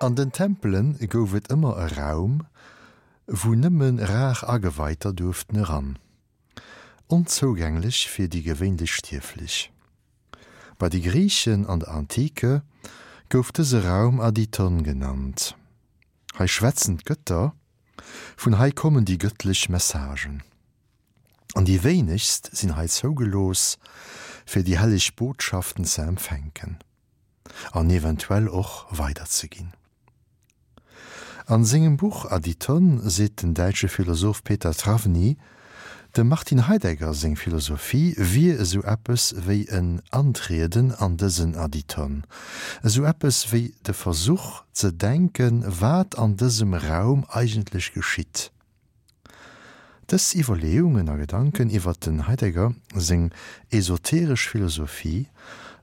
An den Tempele gouf et ëmmer e Raum, wou nëmme rar Ageweiter duerften eran, onzougänglech fir déi gewéinlech Stierflech. Bei de Griichen an der Antike gouf dëse Raum Adyton genannt. Hei schwätzen d'Gëtter, vun hei kommen déi gëttlech Messagen. An déi wéinegst sinn hei zougelooss, fir déi helleg Botschaften ze empfänken. An eventuell och weiderzeginn. An sengem Buch Adyton seet den däitsche Philosoph Peter Trawny, dem Martin Heidegger seng Philosophie wier esou eppes wéi en Antrieden an dësen Adyton, esou eppes wéi de Versuch ze denken, wat an dësem Raum eigentlech geschitt. Dës Iwwerleeungen a Gedanken iwwert den Heidegger seng esoteresch Philosophie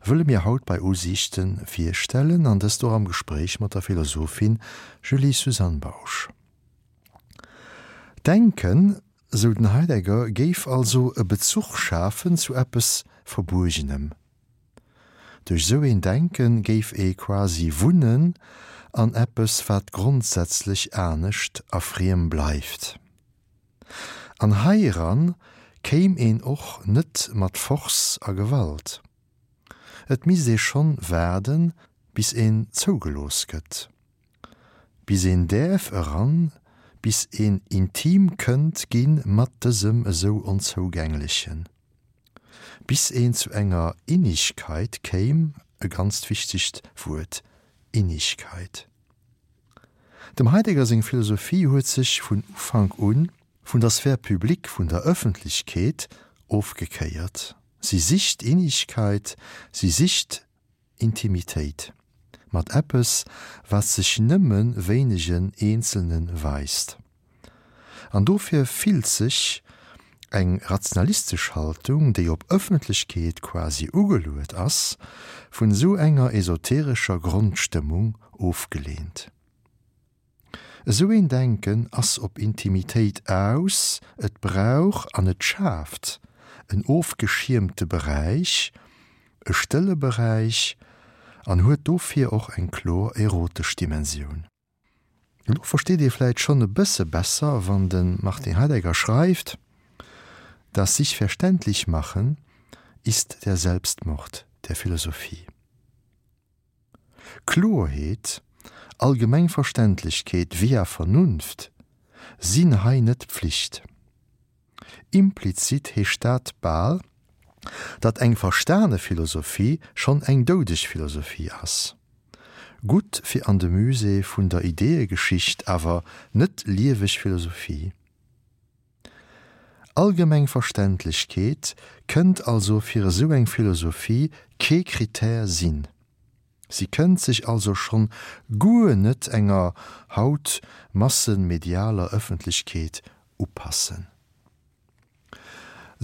wëlle mir haut bei Usiichte virstellen an dëst och am Gespréich mat der Philosophin Julie-Suzanne Bausch. D'Denken, sou den Heidegger, géif also e Bezuch schafen zu eppes Verbuergenem. Duerch sou een Denken géif ee quasi wunnen an eppes wat grondsätzlech anescht a friem bleift. An heiran kéim een och net mat Force a Gewalt. Et misst ee schonn waarden bis een zougelooss gëtt. Bis een däerf eran, bis een intim kënnt gi mat dësem esou Onzougänglechen. Bis een zu enger Innigkeit kéim, e ganzt wichtegt Wuert, Innigkeit. Dem Heidegger seng Philosophie huet sech vun Ufank un vun der Sphère publique, vun der Ëffentlechkeet ofgekéiert. Si sicht Innigkeit, si sicht Intimitéit mat eppes, wat sech nëmme wéinegen Eenzelne weist. An dofir fillt sech eng rationalistesch Haltung, déi op Ëffentlechkeet quasi ugeluet ass, vun esou enger esoterescher Grondstëmmung ofgeleent. Esou een Denken ass op Intimitéit aus, et brauch an et schaaft en ofgeschiermte Beräich, e stëlle Beräich an huet dofir och eng kloer erotesch Dimensioun. Elo versteet ee vläit schonn e bësse besser, wann de Martin Heidegger schreift, Das sich verständlich machen ist der Selbstmord der Philosophie. Kloerheet, allgemeng Verständlechkeet via Vernunft sinn hei net Pflicht. Implizit heescht dat bal, datt eng verstane Philosophie schonn eng doudeg Philosophie ass. Gutt fir an de Musée vun der Ideeëgeschicht, awer net lieweg Philosophie. Allgemeng Verständlechkeet kënnt also fir esou eng Philosophie kee Critère sinn. Si kënnt sech also schonn guer net enger haut massenmedialer Ëffentlechkeet upassen.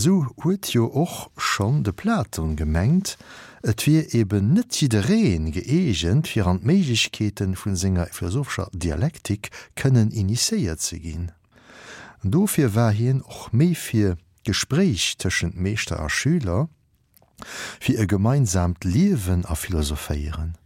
Esou huet jo och schonn de Platon gemengt, et wier eben net jidderee gëeegent fir an d'Méiglechkeete vun senger philosophescher Dialektik kënnen initiéiert ze ginn. Dofir war hien och méi fir d'Gespréich tëschent Meeschter a Schüler, fir e gemeinsaamt Liewen a Philosophéieren.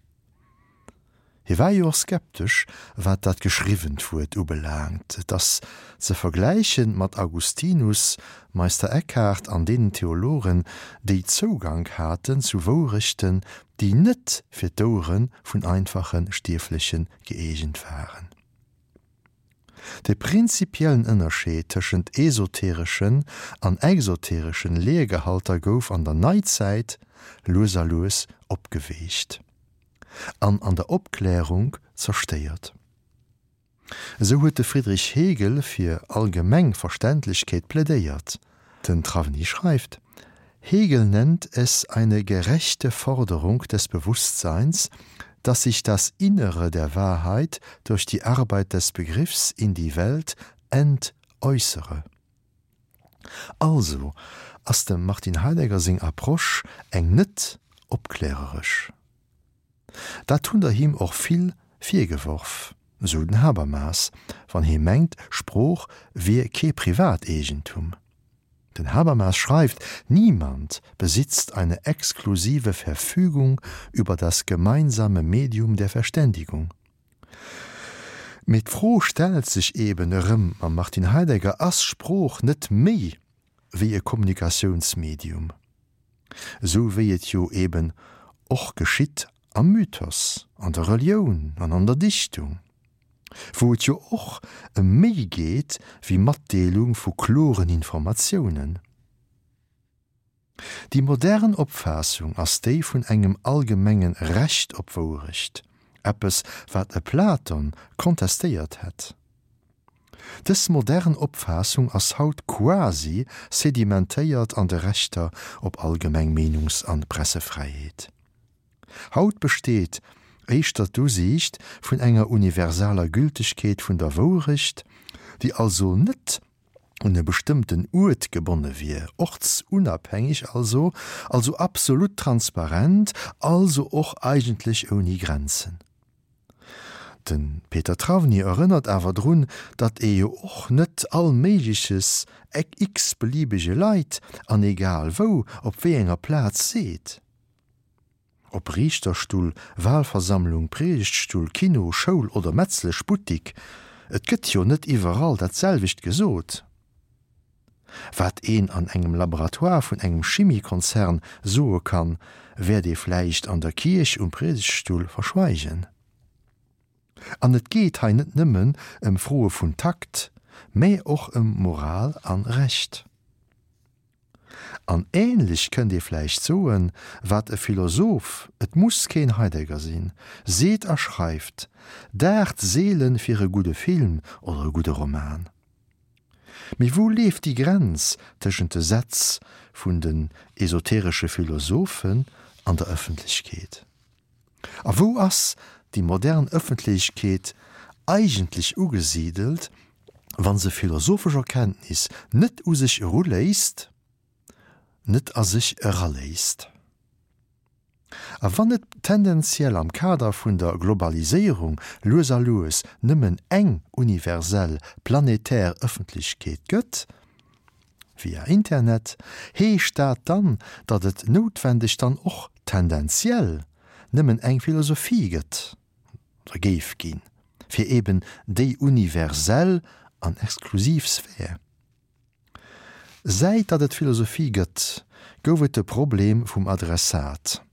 Hie war jo och skeptesch, wat dat geschriwwent Wuert ubelaangt. Et ass ze vergläichen mat Augustinus, Meister Eckhart an deenen Theologen, déi Zougank haten zu Wourechten, déi net fir d'Ouere vun einfache Stierfleche gëeegent waren. De prinzipiellen Ënnerscheed tëschent esotereschen an exotereschen Lehrgehalter gouf an der Neizäit lues a lues opgeweecht an an der Opklärung zerstéiert. Esou huet de Friedrich Hegel fir allgemeng Verständlechkeet plädéiert. Den Trawny schreift, Hegel nennt es eine gerechte Forderung des Bewusstseins, dass sich das Innere der Wahrheit durch die Arbeit des Begriffs in die Welt entäußere. Also ass dem Martin Heidegger seng Approche eng net opkläreresch. Dat hunn der him och vill virgeworf, sou den Habermas, wann hie mengt, Sprooch wier kee Privateegentum. Den Habermas schreift: Niemand besitzt eine exklusive Verfügung über das gemeinsame Medium der Verständigung. Mee d'Fro stellt sech eben erëm mam Martin Heidegger, Ass Sprooch net méi wéi e Kommunikatiounsmedium? Esou wéi et jo eben och geschitt am Mythos, an der Relioun an an der Dichtung, wou et jo och ëm méi geet wéi Matdeelung vu kloren Informatiounen. Déi modern Opfaassung ass déi vun engem allgemenge Recht op Wourecht, eppes wat e Platon kontestéiert hätt. Dës modern Opfaassung ass haut quasi sedimentéiert an de Rechter op allgemeng Meenungs an Pressefräiheet. Haut besteet éischter d'Usiicht vun enger universaler Gültegkeet vun der Wourecht, déi also net un e bestëmmten Uert gebonne wier, ortsunabhängig also, also absolut transparent, also och eigentlech ouni Grenzen. De Peter Trawny erënnert awer drun, datt ee jo och net all Méigleches x-beliebege Leit an egal wou op wéi enger Plaz seet. Ob Riichterstull, Walversammlung, Priedegtstull, Kino, Schoul oder Metzleschbuttik, et gëtt jo net iwwerall dat selwecht gesot. Wat een an engem Laboratoire vun engem Chimiekonzern soe kann, wäert ee vläicht an der Kierch um Priedegtstull verschweigen. An et geet hei net nëmmen ëm Froe vun Takt, mä och ëm Moral an Recht. An ähnlech kënnt ee vläicht soen, wat e Philosoph, et muss keen Heidegger sinn, seet a schreift, daacht seelen fir e gudde Film oder e gudde Roman. Mee wou leeft déi Grenz tëschent de Sätz vun den esoteresche Philosophen an der Ëffentlechkeet? A wou ass déi modern Ëffentlechkeet eigentlech ugesidelt, wa se philosophesch Erkenntnis net u sech eruléisst, net a sech eraléisst? A wann et tendenziell am Kader vun der Globaliséierung lues a lues nëmmen eng universell planetär Ëffentlechkeet gëtt, via Internet, heescht dat dann, datt et noutwendeg dann och tendenziell nëmmen eng Philosophie gëtt, oder géif ginn, fir eben déi universell an exklusiv Sphär? Säit datt et Philosophie gëtt, gouf et de Problem vum Adressat,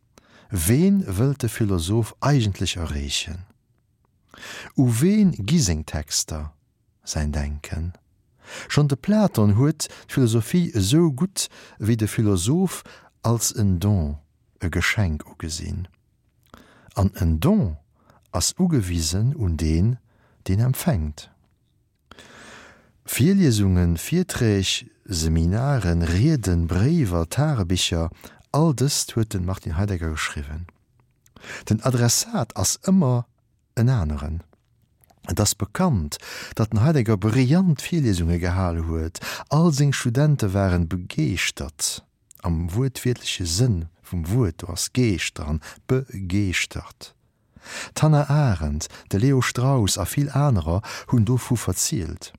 Ween wëllt de Philosoph eigentlech erreechen? U ween gi seng Texter? Säin Denken. Schonn de Platon huet d'Philosophie esou gutt wéi de Philosoph als en Don, e Geschenk ugesinn. An en Don ass ugewisen un deen, deen empfänkt. Virliesungen, Virträg, Seminaren, Rieden, Bréiwer, Tagebicher, all dëst huet de Martin Heidegger geschriwwen. Den Adressat ass ëmmer en aneren. Et ass bekannt, datt den Heidegger brillant Virliesunge gehal huet, all seng Studente waren begeeschtert, am wuertwiertleche Sënn vum Wuert, do ass Geescht dran, begeeschtert. D'Hannah Arendt, de Leo Strauss a vill anerer hunn dovu verzielt.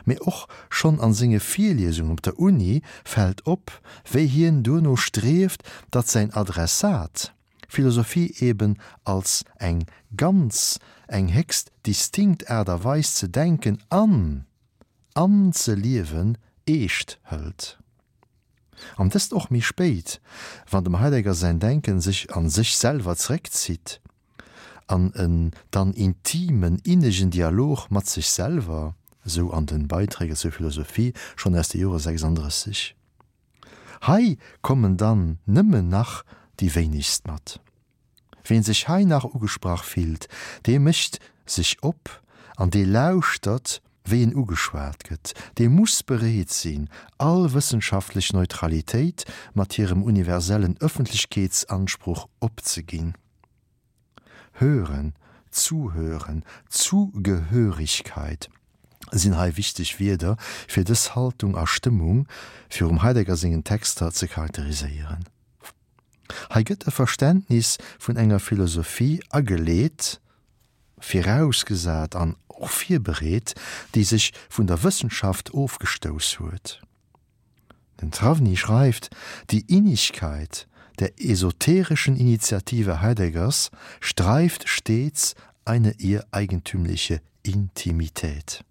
Mee och schonn an senge Virliesungen op der Uni fält op, wéi hien duerno strieft, datt säin Adressat d'Philosophie eben als eng ganz, eng héchst distinkt Aart a Weis ze denken an an ze liewen eescht hëlt. An dëst och méi spéit, wann dem Heidegger säin Denken sech a sech selwer zeréckzitt, an en dann intimen, innegen Dialog mat sech selwer, esou an den Beiträge zur Philosophie schonn aus de Jore 36. Hei kommen dann nëmmen nach déi wéinegst mat. Ween sech hei nach ugesprach fillt, dee mécht sech op an dee lauschtert, wéi en ugeschwat gëtt. Dee muss bereet sinn, all wëssenschaftlech Neutralitéit mat hirem universellen Ëffentlechkeetsansproch opzeginn. Hören, Zuhören, Zugehörigkeit sinn hei wichteg Wierder, fir dës Haltung a Stëmmung virum Heidegger sengen Texter ze charakteriséieren. Hei gëtt e Verständnis vun enger Philosophie ageleet, virausgesat an och virbereet, déi sech vun der Wëssenschaft ofgestouss huet. Den Trawny schreift, Die Innigkeit der esoterischen Initiative Heideggers streift stets eine ihr eigentümliche. Intimität.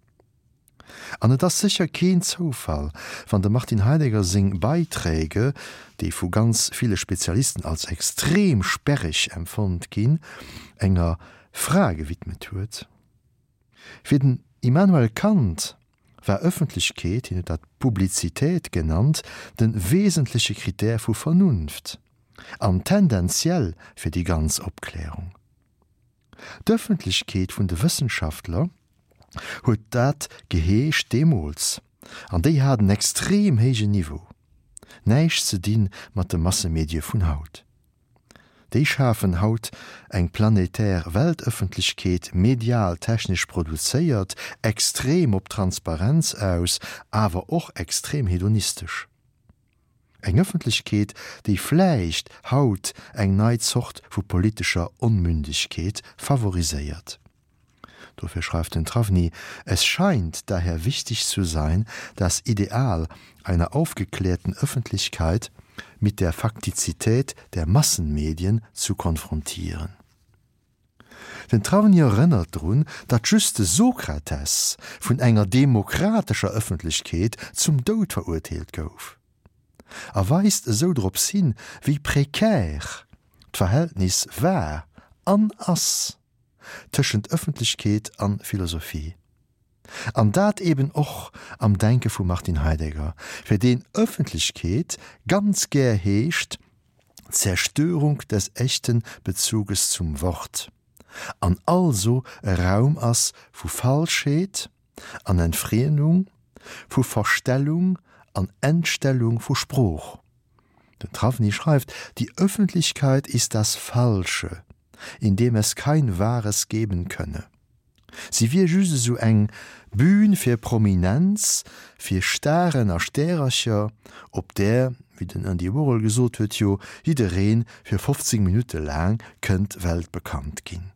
An et ass sécher keen Zoufall, wann dem Martin Heidegger seng Beiträge, déi vu ganz ville Spezialisten als extrem sperreg empfonnt ginn, enger Fra gewidmet huet. Fir den Immanuel Kant war Ëffentlechkeet, hien huet dat Publizität genannt, de wesentleche Critère vu Vernunft an tendenziell fir déi ganz Opklärung. D'Ëffentlechkeet vun de Wëssenschaftler huet dat geheescht deemools, an déi hat en extrem héijen Niveau. Näischt ze di mat de Massemedie vun haut. Déi schafen haut eng planetär Weltëffentlechkeet, medial technesch produzéiert, extrem op Transparenz aus, awer och extrem hedonistesch. Eng Ëffentlechkeet, déi vläicht haut eng nei Zort vu politescher Onmündegkeet favoriséiert. Dofir schreift den Trawny, Es scheint daher wichtig zu sein, das Ideal einer aufgeklärten Öffentlichkeit mit der Faktizität der Massenmedien zu konfrontieren. Den Trawny erënnert drun, datt just de Sokrates vun enger demokratescher Ëffentlechkeet zum Doud verurteelt gouf, a weist esou drops hin, wéi prekär d'Verhältnis war an ass tëschent Ëffentlechkeet an Philosophie. An dat eben och am Denke vum Martin Heidegger, fir deen Ëffentlechkeet ganz gär heescht Zerstörung des echten Bezuges zum Wort an also e Raum ass vu Falschheet an Entfriemdung, vu Verstellung an Entstellung vu Sprooch. Den Trawny schreift, Die Öffentlichkeit ist das Falsche, in dem es kein Wahres geben könne. Si wier just esou eng Bühn fir Prominenz, fir Staren a Stärercher, op där, wéi den Andy Warhol gesot huet, jo jidderee fir 15 Minutte laang kënnt weltbekannt ginn.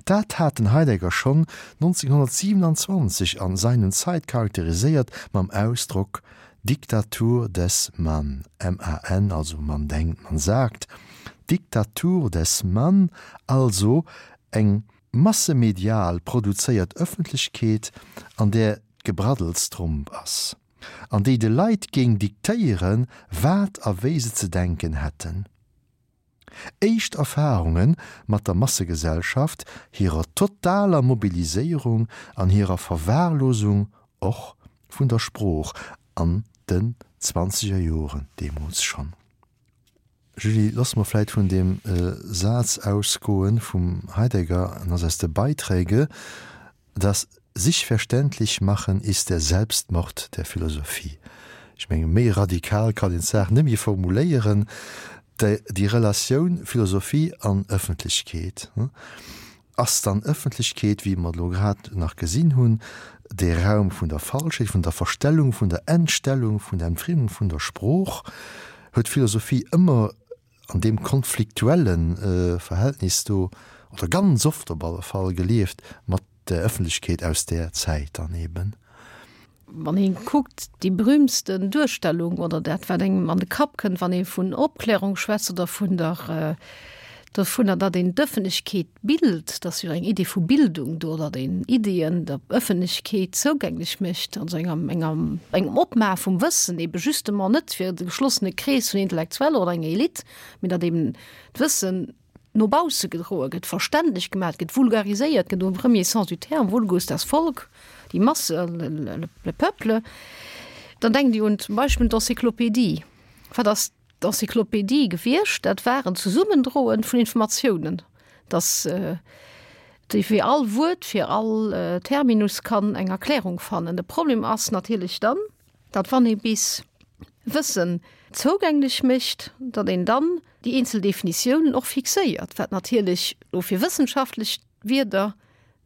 Dat hat den Heidegger schonn 1927 an Sein und Zeit charakteriséiert mam Ausdrock Diktatur des Man, M-A-N, also man denkt, man sagt, Diktatur des Man, also eng massemedial produzéiert Ëffentlechkeet, an där d'Gebraddels Tromp ass, an déi de Leit géing diktéieren, wat a wéi se ze denken hätten. Éischt Erfarunge mat der Massegesellschaft, hirer totaler Mobiliséierung an hirer Verwahrlosung och vun der Sprooch an den zwanzeger Joren deemools schonn. Julie, loosse mer vläit vun deem Saz ausgoen vum Heidegger, en ass aus de Beiträge, Das Sich-verständlich-Machen ist der Selbstmord der Philosophie. Ech menge méi radikal kann een d'Saach net méi formuléieren, déi Relatioun Philosophie an Ëffentlechkeet. Ass dann Ëffentlechkeet, wéi mer et elo grad nach gesinn hunn, dee Raum vun der Falschheet, vun der Verstellung, vun der Entstellung, vun der Entfriemung vun der Sprooch? Huet d'Philosophie ëmmer an deem konfliktuelle Verhältnis do, oder ganz oft op alle Fall, gelieft mat der Ëffentlechkeet aus där Zäit dann eben? Wann ee kuckt, déi berühmtsten Duerstellung oder dat, wat engem an de Kapp kënnt, wann ee vun Opklärung schwätzt oder vun der, dovunner, datt een d'Ëffentlechkeet bilt, et ass jo eng Idee vu Bildung do, datt een Ideeën der Ëffentlechkeet zougänglech mécht, also enger, enger, engem Opmaache vum Wëssen, ebe justement net fir de geschlossene Krees vun Intellektueller oder enger Elite, mee datt eben d'Wëssen no bausse gedroe gëtt, verständlech gemaat gëtt, vulgariséiert gëtt, au premier sens du terme, vulgus, das Volk, die Masse, le peuple, dann denkt Dir un zum Beispill d'Encyclopédie. Wat ass d'Encyclopédie gewiescht? Dat war en Zesummendroen vun Informatiounen, dass déi fir all Wuert, fir all Terminus kann eng Erklärung fannen. De Problem ass natierlech dann, datt wann ee bis Wëssen zougänglech mécht, datt een dann déi eenzel Definitiounen och fixéiert, wat natierlech elo fir wëssenschaftlech Wierder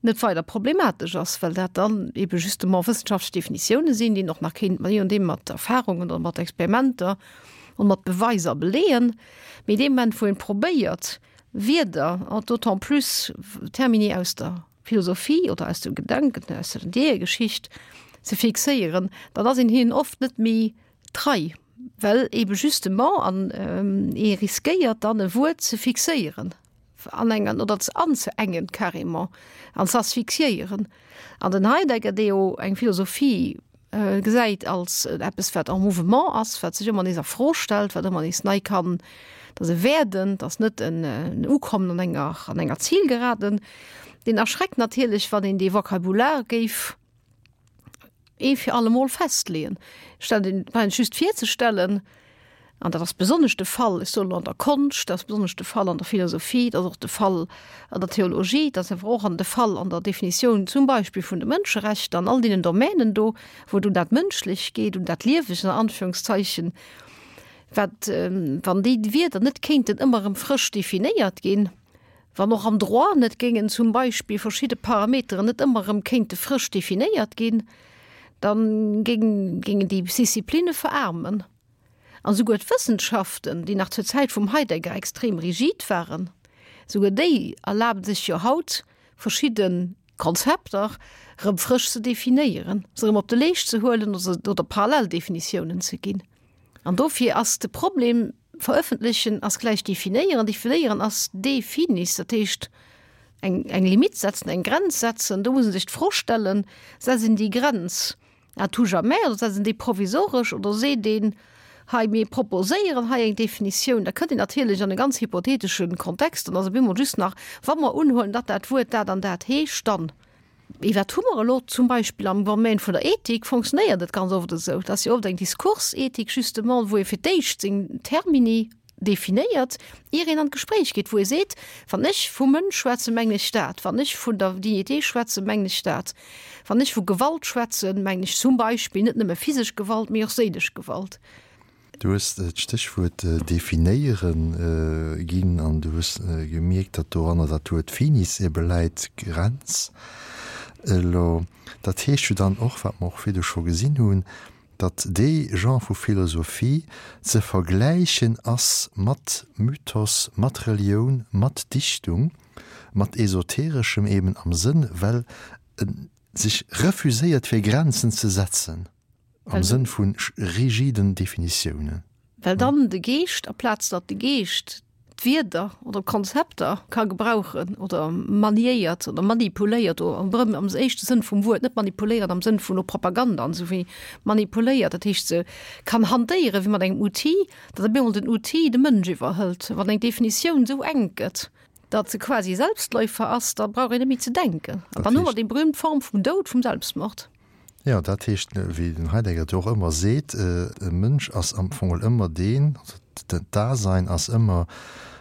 net weider problematesch ass, well dat dann ebe justement wëssenschaftlech Definitioune sinn, déi een och nach kéint, je nodeem, mat Erfahrungen oder mat Experimenter und mat Beweiser beleeën. Mee dee Moment, wou een probéiert, Wierder, an d'autant plus Termini aus der Philosophie oder aus dem Gedanken, aus der Ideeëgeschicht ze fixéieren, dann ass een hinnen oft net méi trei, well ebe justement an ee riskéiert dann e Wuert ze fixéieren. Anengen oder ze anzeengen carrément an ze asphyxiéieren. An den Heidegger, dee jo eng Philosophie gesäit als eppes wat en mouvement ass, wat sech ëmmer nees a Fro stellt, wat ëmmer nees nei kann, dat ass e Werden, dat ass net en Ukommen an enger an enger Zielgeraden, deen erschreckt natierlech, wann een dee Vocabulaire géif ee fir allemol festleeën. Stellt een brauch just virzestellen, an dat ass besonnesch de Fall, ech soen elo an der Konscht, dat ass besonnesch de Fall an der Philosophie, dat ass och de Fall an der Theologie, dat ass awer och an de Fall an der Definitioun zum Beispill vun de Mënscherechter, an all deenen Domänen do, wou et un dat Mënschlecht geet, un dat Liewegt an Anführungszeichen, wat, wann déi Wierder net kéinten ëmmer erëm frësch definéiert ginn, Wann och am Droit net géingen zum Beispill verschidde Parameteren net ëmmer erëm kéinte frësch definéiert ginn, da géingen déi Disciplinne veraarmen. An esouguer d'Wëssenschaften, déi nach zur Zäit vum Heidegger extrem rigid waren, esouguer déi erlabe sech jo haut, verschidde Konzepter erëm frësch ze definéieren, se erëm op de Leescht ze huelen oder Paralleldefinitiounen ze ginn. An dofir ass de Problem, verëffentlechen ass gläich definéieren, definéieren ass de finis, dat heescht eng, eng Limite setzen, eng Grenz setzen. Do muss ee sech d'Fro stellen, Setzt een déi Grenz à tout jamais oder setzt een déi provisoresch oder seet een, hei mir proposéieren hei eng Definitioun? Da kënnt een natierlech an e ganz hypotheetesche Kontext, dann ass op eemol just nach, wa mer unhuelen, datt dat Wuert dat an dat heescht, dann. Mee wat hu mer elo zum Beispill am Domaine vun der Ethik? Fonctionnéiert et ganz oft esou, et ass jo oft eng Diskursethik justement, wou ee fir d'éischt seng Termini definéiert, ier een an d'Gespréich geet, wou ee seet, wann ech vum Mënsch schwätzen, mengen ech dat, wann ech vun der Dignité schwätzen, mengen ech dat, wann ech vu Gewalt schwätzen, mengen ech zum Beispill net nëmme physesch Gewalt, mee och séilesch Gewalt. Du hues d'Stéchwuert definéieren ginn an du hues gemierkt, datt doranner dat Wuert finis ebe läit, Grenz. Elo, dat heescht jo dann och, wat mer och virdu scho gesinn hunn, datt dee Genre vu Philosophie ze vergläichen ass mat Mythos, mat Relioun, mat Dichtung, mat Esotereschem eben am Sënn, well e sech refuséiert fir Grenzen ze setzen. Am Sënn vu rigiden Definitiounen. Well dann de Geescht, aplaz datt de Geescht d'Wierder oder d'Konzepter ka gebrauchen oder maniéiert oder manipuléiert, oder am am éischte Sënn vum Wuert, net manipuléiert am Sënn vun Propaganda an esou, wéi manipuléiert, dat heescht se kann hantéiere wéi mat engem Outil, datt op eemol den Outil de Mënsch iwwerhëlt. Wann eng Definitioun esou enk gëtt, datt se quasi Selbstläufer ass, da brauch een net méi ze denken. An dann hu mer déi berühmt Form vum Doud, vum Selbstmord. Jo, dat heescht, wéi den Heidegger et jo och ëmmer seet, e Mënsch ass am Fong ëmmer deen, also d'Dasein ass ëmmer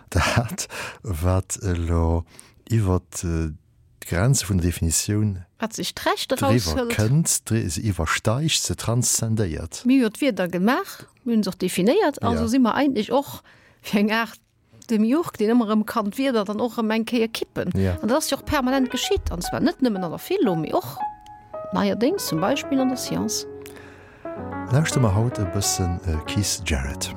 dat, wat elo iwwer d'Grenze vun der Definitioun Wat sech d'Recht driwwer eraushëlt. kënnt, se iwwersteigt, se transzendéiert. Mir hu jo d'Wierder gemaach, mir hunn se och definéiert, also si mer eigentlech och fir eng Aart Demiurg, deen ëmmer erëm kann d'Wierder dann och erëm eng Kéier kippen. Ja. An dat ass jo och permanent geschitt, an zwar net nëmmen an der Philo, mee och neierdéngs zum Beispill an der Science. Lauschtere mer haut e bëssen Keith Jarrett.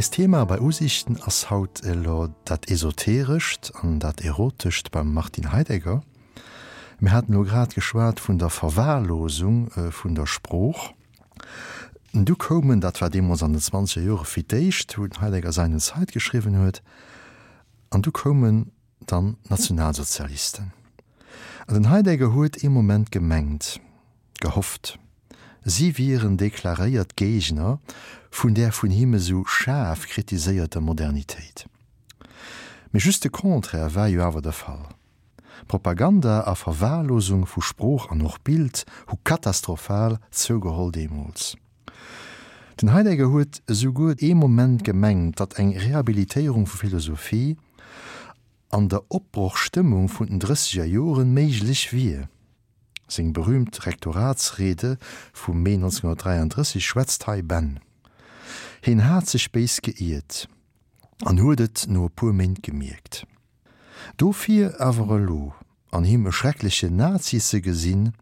Eist Thema bei Usichten ass haut elo dat Esoterescht an dat Erotescht beim Martin Heidegger. Mir haten elo grad geschwat vun der Verwahrlosung vun der Sprooch. Du koumen, dat war deemools an den zwanzeger Jore fir d'éischt, wou den Heidegger Sein und Zeit geschriwwen huet, an du koumen dann d'Nationalsozialisten. An den Heidegger huet ee Moment gemengt, gehofft, si wieren deklaréiert Géigner vun där vun him esou schaarf kritiséierter Modernitéit. Mee just de Contraire war jo awer de Fall. Propaganda a Verwahrlosung vu Sprooch an och Bild hu katastrophal zougeholl deemools. Den Heidegger huet esouguer ee Moment gemengt, datt eng Rehabilitéierung vu Philosophie an der Opbrochstëmmung vun den drësseger Joren méiglech wier. Seng berühmt Rektoratsrede vum Mee 1933 schwätzt hei Bänn. Hien hat sech béis geiert an huet et no e puer Méint gemierkt. Dofir awer elo an him e schrecklechen Nazi ze gesinn,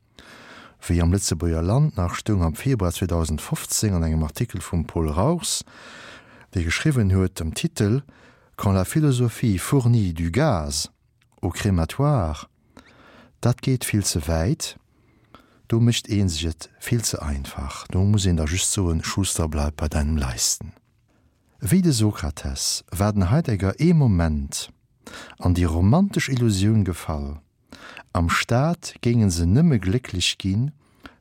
wéi am Lëtzebuerger Land nach stoung am Februar 2015 an engem Artikel vum Paul Rauchs, dee geschriwwen huet am Titel Quand la philosophie fournit du gaz au crématoire, dat geet vill ze wäit, do mécht ee sech et vill ze einfach, do muss een da just soen, Schuster, bleib bei deinem Leisten. Wéi de Sokrates war den Heidegger ee Moment an déi romantesch Illusioun gefall, am Staat géinge se nëmme glécklech ginn,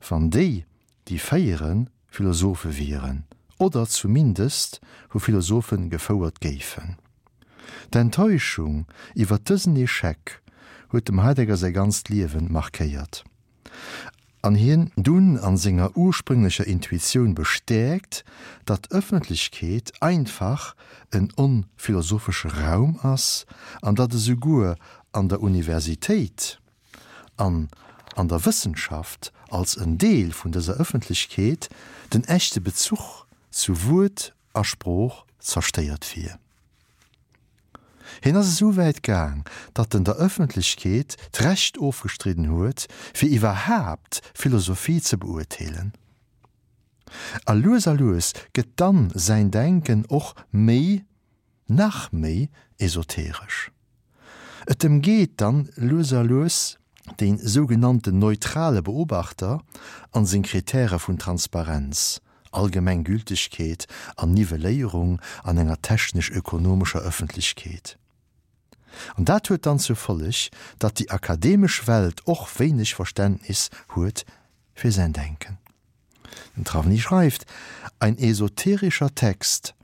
wann déi, déi féieren, Philosophe wieren oder zumindest vu Philosophe gefouert géifen. D'Enttäuschung iwwer dësen Echec huet dem Heidegger säi ganzt Liewen markéiert an hien dunn an senger ursprünglecher Intuitioun bestäerkt, datt Ëffentlechkeet einfach en onphilosophesche Raum ass an datt esouguer an der Universitéit an an der Wëssenschaft als en Deel vun dëser Ëffentlechkeet den echte Bezuch zu Wuert a Sprooch zerstéiert wier. Hien ass esou wäit gaang, datt en der Ëffentlechkeet d'Recht ofgestridden huet, fir iwwerhaapt Philosophie ze beurteelen. A lues a lues gëtt dann säin Denken och méi, nach méi esoteresch. Et ëmgeet dann lues a lues dee sougenannten neutrale Beobachter an seng Kritäre vun Transparenz, allgemeng Gültegkeet an Nivelléierung an enger technesch-ökonomescher Ëffentlechkeet. An dat huet dann zur Folleg, datt déi akademesch Welt och wéineg Verständnis huet fir säin Denken. Den Trawny schreift, Ein esoterischer Text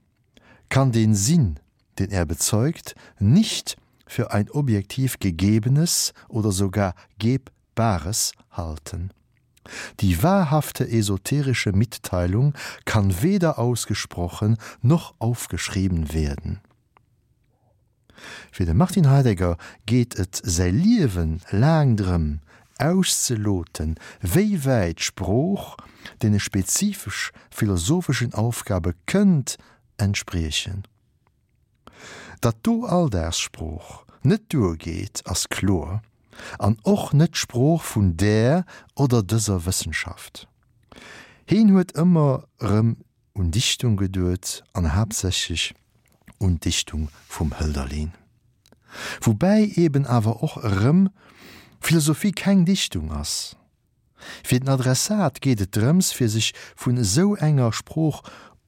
kann den Sinn, den er bezeugt, nicht für ein objektiv Gegebenes oder sogar Gebbares halten. Die wahrhafte esoterische Mitteilung kann weder ausgesprochen noch aufgeschrieben werden. Fir de Martin Heidegger geet et säi Liewe laang drëm, auszeloten, wéi wäit d'Sprooch deene spezifesch philosopheschen Aufgabe kënnt entspriechen. Datt do Alldagssprooch net duergeet, ass kloer, an och net d'Sprooch vun där oder dëser Wëssenschaft. Heen huet ëmmer erëm un Dichtung geduet an haaptsächlech un d'Dichtung vum Hölderlin. Woubäi eben awer och erëm Philosophie keng Dichtung ass. Fir den Adressat geet et drëms fir sech vun esou enger Sprooch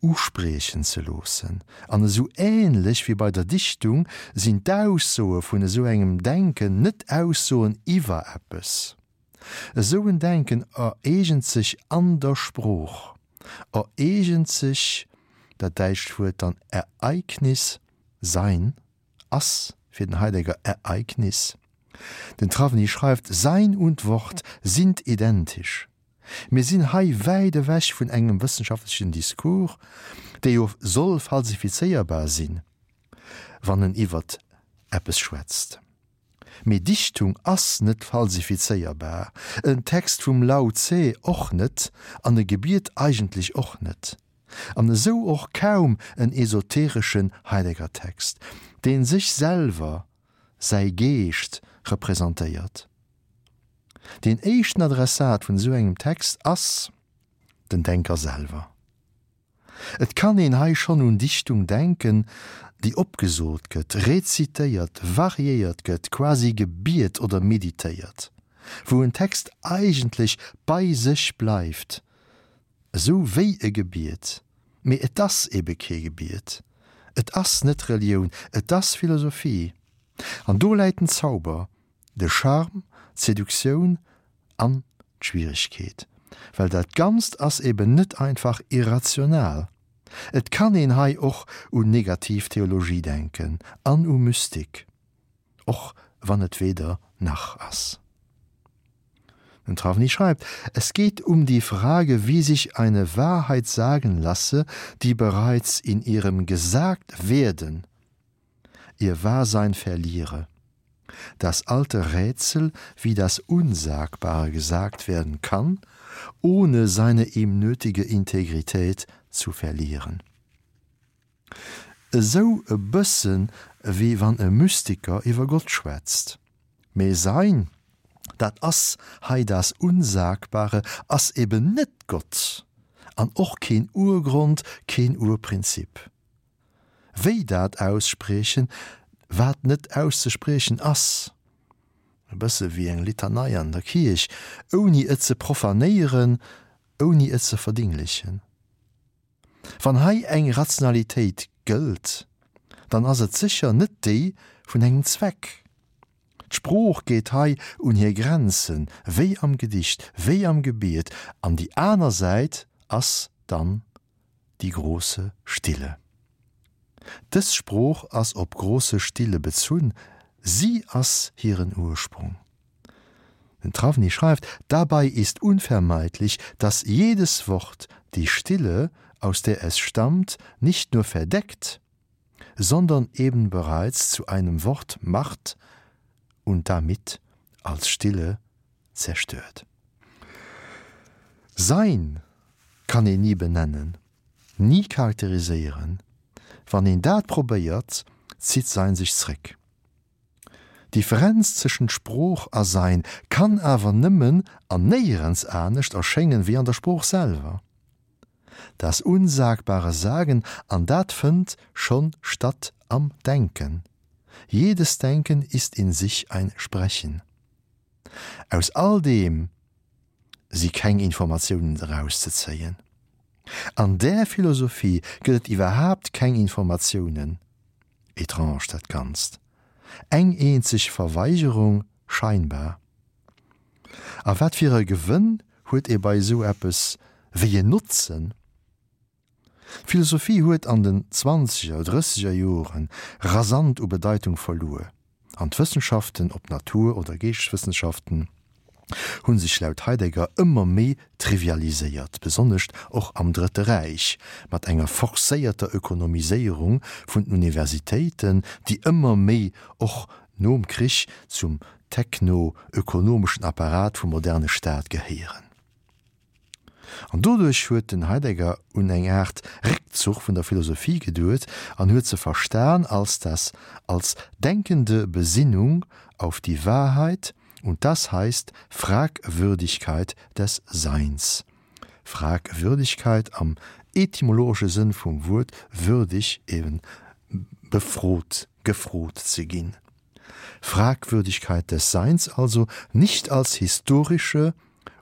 uspriechen ze loossen. An esou ähnlech wéi bei der Dichtung sinn d'Aussoe vun esou engem Denken net Aussoen iwwer eppes. Esou en Denken ereegent sech an der Sprooch, ereegent sech, dat däitscht Wuert dann Ereignis, Sein, ass fir den Heidegger Ereignis. Den Trawny schreift, Sein und Wort sind identisch. Mir sinn hei wäit ewech vun engem wëssenschaftlechen Discours, dee jo soll falsifizéierbar sinn, wann en iwwert eppes schwätzt. Mee Dichtung ass net falsifizéierbar, en Text vum Lao Tse och net an e Gebiet eigentlech och net. An esou och kaum en esotereschen Heidegger-Text, dee sech selwer, säi Geescht, representéiert. Deen éischten Adressat vun esou engem Text ass den Denker selwer. Et kann een hei schonn un Dichtung denken, déi opgesot gëtt, rezitéiert, variéiert gëtt, quasi gebiet oder meditéiert, wou en Text eigentlech bei sech bleift, esou wéi e Gebiet, mee et ass ebe kee Gebiet, et ass net Relioun, et ass Philosophie. An do läit den Zauber, de Charme, d'Seduktioun an d'Schwieregkeet, well dat Ganzt ass eben net einfach irrational. Et kann een hei och un negativ Theologie denken an u Mystik, och wann et weder nach ass. Den Trawny schreibt: Es geht um die Frage, wie sich eine Wahrheit sagen lasse, die bereits in ihrem Gesagtwerden ihr Wahrsein verliere. Das alte Rätsel, wie das Unsagbare gesagt werden kann, ohne seine ihm nötige Integrität zu verlieren. Esou e bëssen wéi wann e Mystiker iwwer Gott schwätzt. Mee Sein, dat ass hei das Unsagbare, ass eben net Gott an och keen Urgrond, keen Urprinzip. Wéi dat ausspriechen, wat net auszespriechen ass? E bësse wéi eng Litanei an der Kierch, ouni et ze profanéieren, ouni et ze verdinglechen. Wann hei eng Rationalitéit gëllt, dann ass et sécher net déi vun engem Zweck. D'Sprooch geet hei un hir Grenzen, wéi am Gedicht, wéi am Gebiet, an déi aner Säit ass dann die große Stille. Dës Sprooch ass op große Stille bezunn, si ass hiren Ursprung. Den Trawny schreift, Dabei ist unvermeidlich, dass jedes Wort die Stille, aus der es stammt, nicht nur verdeckt, sondern eben bereits zu einem Wort macht und damit als Stille zerstört. Sein kann een ni benennen, ni charakteriséieren. Wann een dat probéiert, zitt Sein sech zréck. D'Differenz tëschent Sprooch a Sein kann awer nëmmen an néierens anescht erschéngen wéi an der Sprooch selwer. Das unsagbare Sagen, an dat fënnt schonn statt am Denken. Jedes Denken ist in sich ein Sprechen. Aus all deem si keng Informatiounen erauszezéien. An där Philosophie gëtt et iwwerhaapt keng Informatiounen. Etrange dat Ganzt. Eng eenzeg Verweigerung scheinbar. A wat fir e Gewënn huet ee bei esou eppes, wéi en Notzen? D'Philosophie huet an den zwanzeger, drësseger Jore rasant u Bedeitung verluer, an d'Wëssenschaften, ob Natur oder Geeschteswëssenschaften, hu sech laut Heidegger ëmmer méi trivialiséiert, besonnescht och am Drëtte Räich, mat enger forcéierter Ökonomiséierung vun den Universitéiten, déi ëmmer méi och nom Krich zum techno-ökonomeschen Apparat vum moderne Staat gehéieren. An doduerch huet den Heidegger un eng Aart Réckzuch vun der Philosophie geduet an huet se verstan als das als denkende Besinnung auf die Wahrheit und das heißt Fragwürdigkeit des Seins. Fragwürdigkeit am etymologesche Sënn vum Wuert würdig, eben befrot, gefrot ze ginn. Fragwürdigkeit des Seins also nicht als historische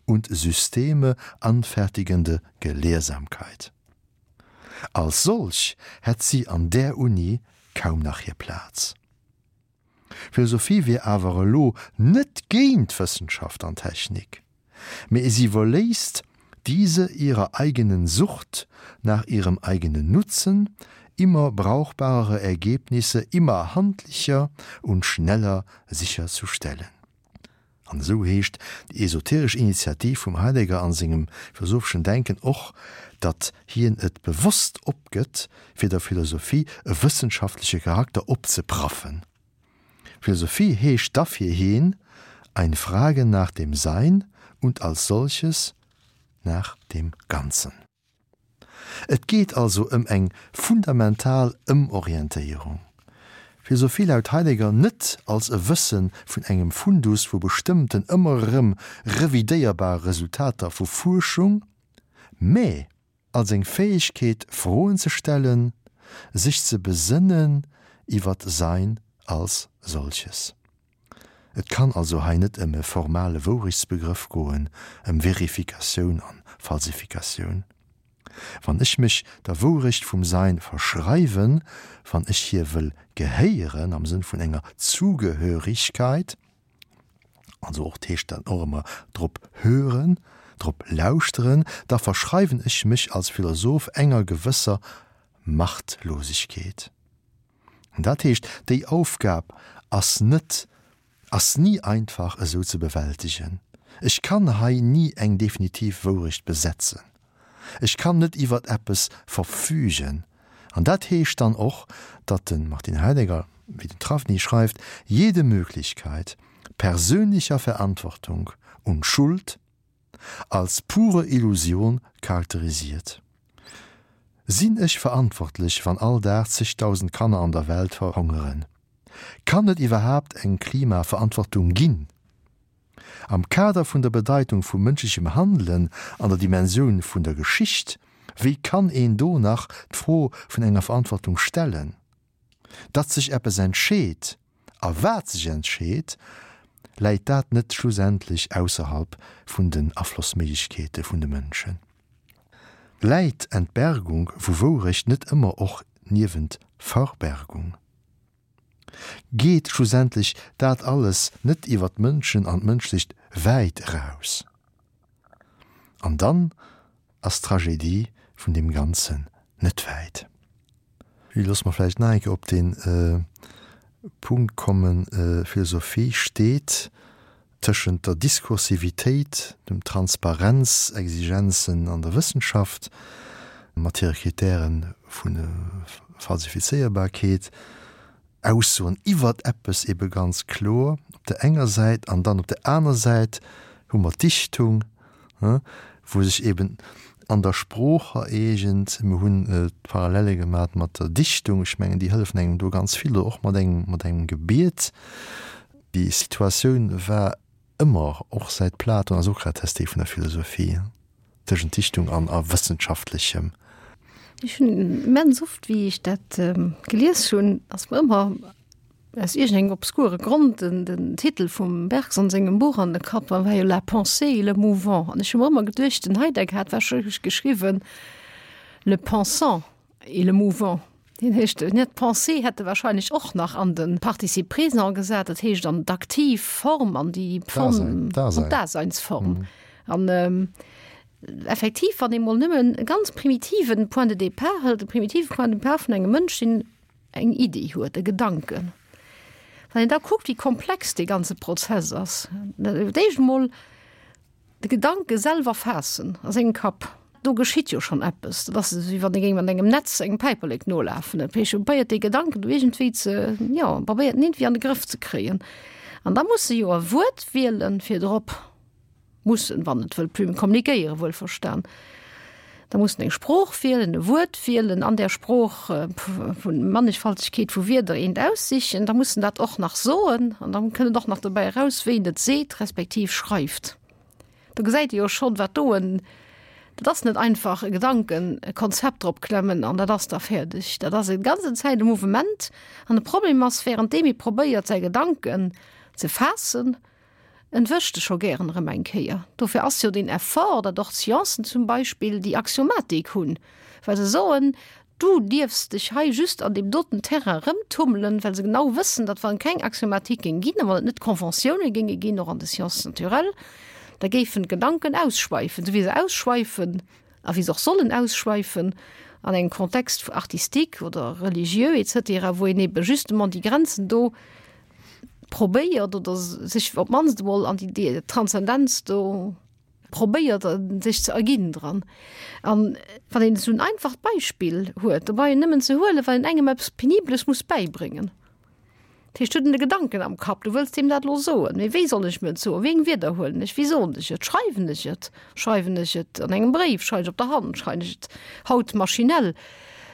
und Systeme anfertigende Gelehrsamkeit. Als solch hätt si an där Uni kaum nach hir Plaz. Philosophie wier awer elo net géint Wëssenschaft an Technik, mee si iwwerléisst diese ihrer eigenen Sucht nach ihrem eigenen Nutzen, immer brauchbarere Ergebnisse immer handlicher und schneller sicherzustellen. An esou heescht déi esoteresch Initiativ vum Heidegger an sengem philosopheschen Denken och, datt hien et bewosst opgëtt, fir der Philosophie e wëssenschaftleche Charakter opzepraffen. Philosophie heescht da fir hien ein Fragen nach dem Sein und als solches nach dem Ganzen. Et geet also ëm eng fundamental Ëmorientéierung. Philosophie laut Heidegger net als e Wësse vun engem Fundus vu bestëmmten ëmmer erëm revidéierbare Resultater vu Fuerschung, mä. Als eng Fäegkeet Froen ze stellen, sech ze besënnen iwwer d'Sein als solches. Et kann also hei net ëm e formale Wourechtsbegrëff goen, ëm Verifikatioun an Falsifikatioun. Wann ech mech der Wourecht vum Sein verschreiwen, wann ech hir wëll gehéieren am Sënn vun enger Zugehörigkeit, also och heescht dat och ëmmer drop hören, drop lauschteren, da verschreiwen ech mech als Philosoph enger gewësser Machtlosigkeet. An dat heescht, déi Aufgab ass net, ass ni einfach esou ze bewältegen. Ech kann hei ni eng definitiv Wourecht besetzen. Ech kann net iwwert eppes verfügen. An dat heescht dann och, datt de Martin Heidegger, wéi den Trawny schreift, jede Möglichkeit persönlicher Verantwortung und Schuld als pure Illusion charakterisiert. Sinn ech verantwortlech, wann all Dag zegdausend Kanner an der Welt verhongeren? Kann et iwwerhaapt eng Klimaverantwortung ginn? Am Kader vun der Bedeitung vu mënschlechem Handelen an der Dimensioun vun der Geschicht, wéi kann een do nach d'Fro vun enger Verantwortung stellen? Datt sech eppes entscheet, a wat sech entscheet, läit dat net schlussendlech ausserhalb vun den Aflossméiglechkeete vun de Mënschen? Läit Entbergung vu Wourecht net ëmmer och niewent Verbergung? Geet schlussendlech dat alles net iwwer d'Mënschen an d'Mënschlecht wäit eraus? An dann ass d'Tragedie vun deem Ganzen net wäit. Loosse mer vläicht nach eng Kéier op dee Punkt kommen, Philosophie steet tëschent der Diskursivitéit, dem Transparenzexigenzen an der Wëssenschaft mat hire Kritäre vu Falsifizéierbarkeet, Aussoen iwwert eppes ebe ganz kloer op der enger Säit, an dann op der aner Säit hu mer d'Dichtung, wou sech eben an der Sprooch ereegent. Mir hunn d'Parallele gemat mat der Dichtung, ech mengen déi hëllefen engem do ganz vill, oder och mat engem mat engem Gebiet. Déi Situatioun war ëmmer, och säit Platon a Sokrates, déi vun der Philosophie, tëschent Dichtung an a Wëssenschaftlechem. Ech hunn immens oft, wéi ech dat gelies hunn, ass mer ëmmer aus iergendengem obskure Grond den, den Titel vum Bergson sengem Buch an de Kapp, a war jo La pensée et le mouvant. An ech hu mer ëmmer geduecht, den Heidegger hat warscheinlech geschriwwen Le pensant. Et le mouvant, deen heescht net d'Pensée hätt e wahrscheinlech och nach an de Participe présent gesat, dat heescht an d'aktiv Form, an déi Form, an d'Daseinsform. An effektiv, wann ee mol nëmmen e ganz primitiven Point de départ hëlt, e primitive Point de départ vun engem Mënsch, deen eng Iddi huet, e Gedanken, wann een da kuckt, wéi komplex dee ganze Prozess ass, d'éischt emol, De Gedanke selwer faassen a sengem Kapp, do geschitt jo schonn eppes. Dat ass esou, wéi wann ee géing mat engem Netz engem Päiperlek nolafen. Et probéiert dee Gedanken do iergendwéi ze, jo, probéiert en iergendwéi an de Grëff ze kréien. An da muss e jo e Wuert wielen, fir drop, mussen, wann et wëll plume kommunikéieren, wuelverstan. Da muss en eng Sprooch wielen, e Wuert wielen, an där Sprooch vun Mannigfaltegkeet vu Wierder eent aussichen. Da muss en dat och nach soen an da kënnt et och nach dobäi eraus, wéi en et seet respektiv schreift. Do gesäit ee jo schonn, wat do en, dat ass net einfach e Gedanken, e Konzept drop klemmen an dat ass da fäerdeg. Dat ass e ganzen Zäit e Mouvement an de Problem ass, währenddeem ee probéiert säi Gedanken ze faassen, En wëscht e scho gären erëm eng Kéier. Dofir ass jo deen Effort, datt och d'Sciencen zum Beispill déi Axiomatik hunn, well se soen, du dierfs dech hei just an deem doten Terrain erëmtummelen, well se genau wëssen, datt wann et keng Axiomatik géing ginn a wann et net Conventiounen géinge ginn, och an de Sciences naturelles, da géifen d'Gedanken ausschweifen, esou wéi se ausschweifen a wéi se och sollen ausschweifen an engem Contexte artistique oder religieux et cetera, wou een ebe justement déi Grenzen do probéiert oder sech op d'mannst emol an déi Transzendenz do probéiert sech ze erginn dran. An wann een esou en einfacht Beispill huet, dobei en nëmmen ze huelen, wann een engem eppes Penibeles muss bäibréngen. Dat heescht, huet en de Gedanken am Kapp, du wëlls deem dat elo soen, mee wéi soll ech mir et soen, wéi eng Wierder huelen ech, wéi soen ech et, schreiwen ech et, schreiwen ech et an engem Bréif, schreiwen ech op der Hand, schreiwen ech et haut maschinell?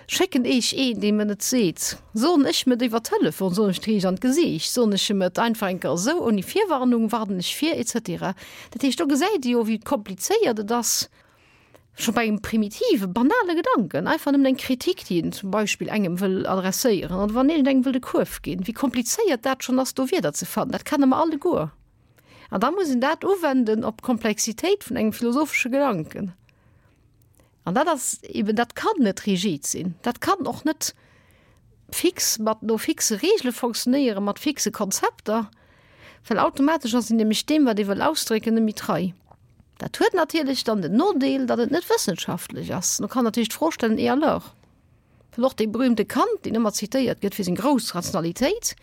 Schécken ech een, dee mer et seet? Soen ech em et iwwer Telefon? Soen ech et riicht an d'Gesiicht? Soen ech em et einfach eng Kéier esou, ouni Virwarnung? Warnen ech vir? Et cetera. Dat heescht, do gesäit ee jo, wéi komplizéiert et ass. Scho bei engem primitive, banale Gedanken, einfach nëmmen eng Kritik, déi een zum Beispill engem wëll adresséieren oder wann iergendengem wëll de Kuerf ginn, wéi komplizéiert dat schonn ass, do Wierder ze fannen, dat kenne mer alleguer. An da muss een dat uwenden op d'Komplexitéit vun engem philosophesche Gedanken. An dat ass eben, dat kann net rigid sinn, dat kann och net fix mat no fixe Reegele fonctionnéieren, mat fixe Konzepter, well automatesch ass een nämlech deem, wat ee wëll ausdrécken, net méi trei. Dat huet natierlech dann den Nodeel, datt et net wëssenschaftlech ass. Do kann natierlech d'Fro stellen, Et alors? Well och dee berühmte Kant, deen ëmmer zitéiert gëtt fir seng grouss Rationalitéit,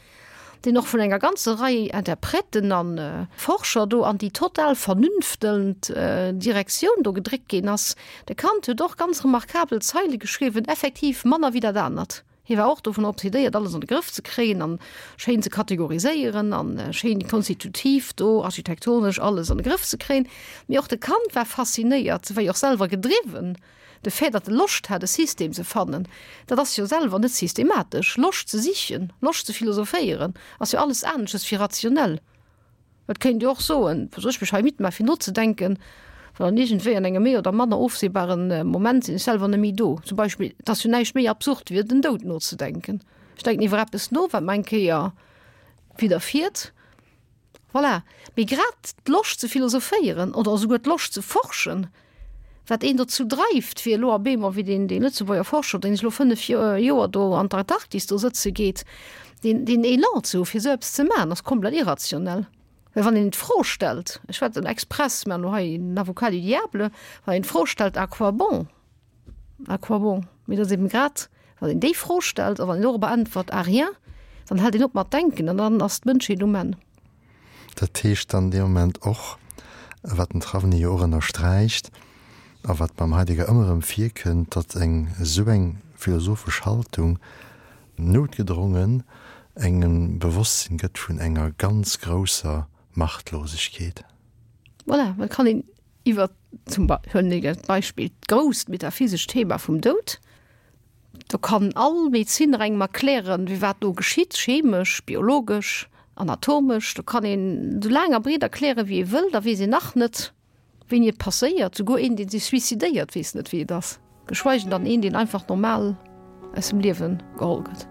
deen och vun enger ganzer Rei Interpreten a Forscher do an déi total vernünftelnd Direktioun do gedréckt ginn ass, de Kant huet och ganz remarkabel Zeile geschriwwen, effektiv manner wéi dat anert. Hie war och dovun obsedéiert, alles an de Grëff ze kréien an schéin ze kategoriséieren an schéin konstitutiv do architektonesch alles an de Grëff ze kréien. Mee och de Kant war faszinéiert, war jo och selwer gedriwwen, de Fait, datt e Loscht hat e System ze fannen, dat ass jo selwer net systematesch. Loscht ze sichen, Loscht ze philosophéieren, ass jo alles anesches wéi rationell. Et kéint jo och soen, soll ech mech hei midd maachen fir nozedenken, well dann iergendwéi an engem méi oder manner ofsehbare Moment sinn ech selwer net méi do. Zum Beispill, et ass jo näischt méi absurd wéi iwwer den Doud nozedenken. Ech denken iwwer eppes no, wat mer eng Kéier widderfiert. Voilà. Mee grad d'Loscht ze philosophéieren oder esouguer d'Loscht ze forschen, wat een dozou dreift, fir elo op eemol, wéi deen, dee Lëtzebuerger Forscher, deen elo 5 Joer do an d'Antarktis do sëtze geet, deen, deen Elan ze hu fir esou eppes ze maachen, ass komplett irrationell. Well wann een d'Fro stellt, ech schwätzen express, maachen elo hei den Avocat du diable, wann een d'Fro stellt, à quoi bon? À quoi bon? Mee et ass eben grad, wann een déi Fro stellt a wann een dorobber äntwert, à rien, dann hält een op mat denken an dann ass d'Mënschheet um Enn. Dat heescht dann dee Moment och, wat den Trawny jo och ënnersträicht a wat beim Heidegger ëmmer erëm virkënnt, datt eng esou eng philosophesch Haltung noutgedrongen engem Bewosstsinn gëtt vun enger ganz grousser Machtlosegkeet. Voilà, et kann een iwwer zum huelen ech als Beispill d'grousst metaphysescht Thema vum Doud. Do kann all Medezinner engem erklären, wéi wat do geschitt, chemesch, biologesch, anatomesch. Do kann een esou laang a breet erklären, wéi ee wëll, da weess een nach net, wéini et passéiert. Souguer een, dee sech suicidéiert, weess net, wéi et ass. Geschweigen dann een, deen einfach normal aus dem Liewe geholl gëtt.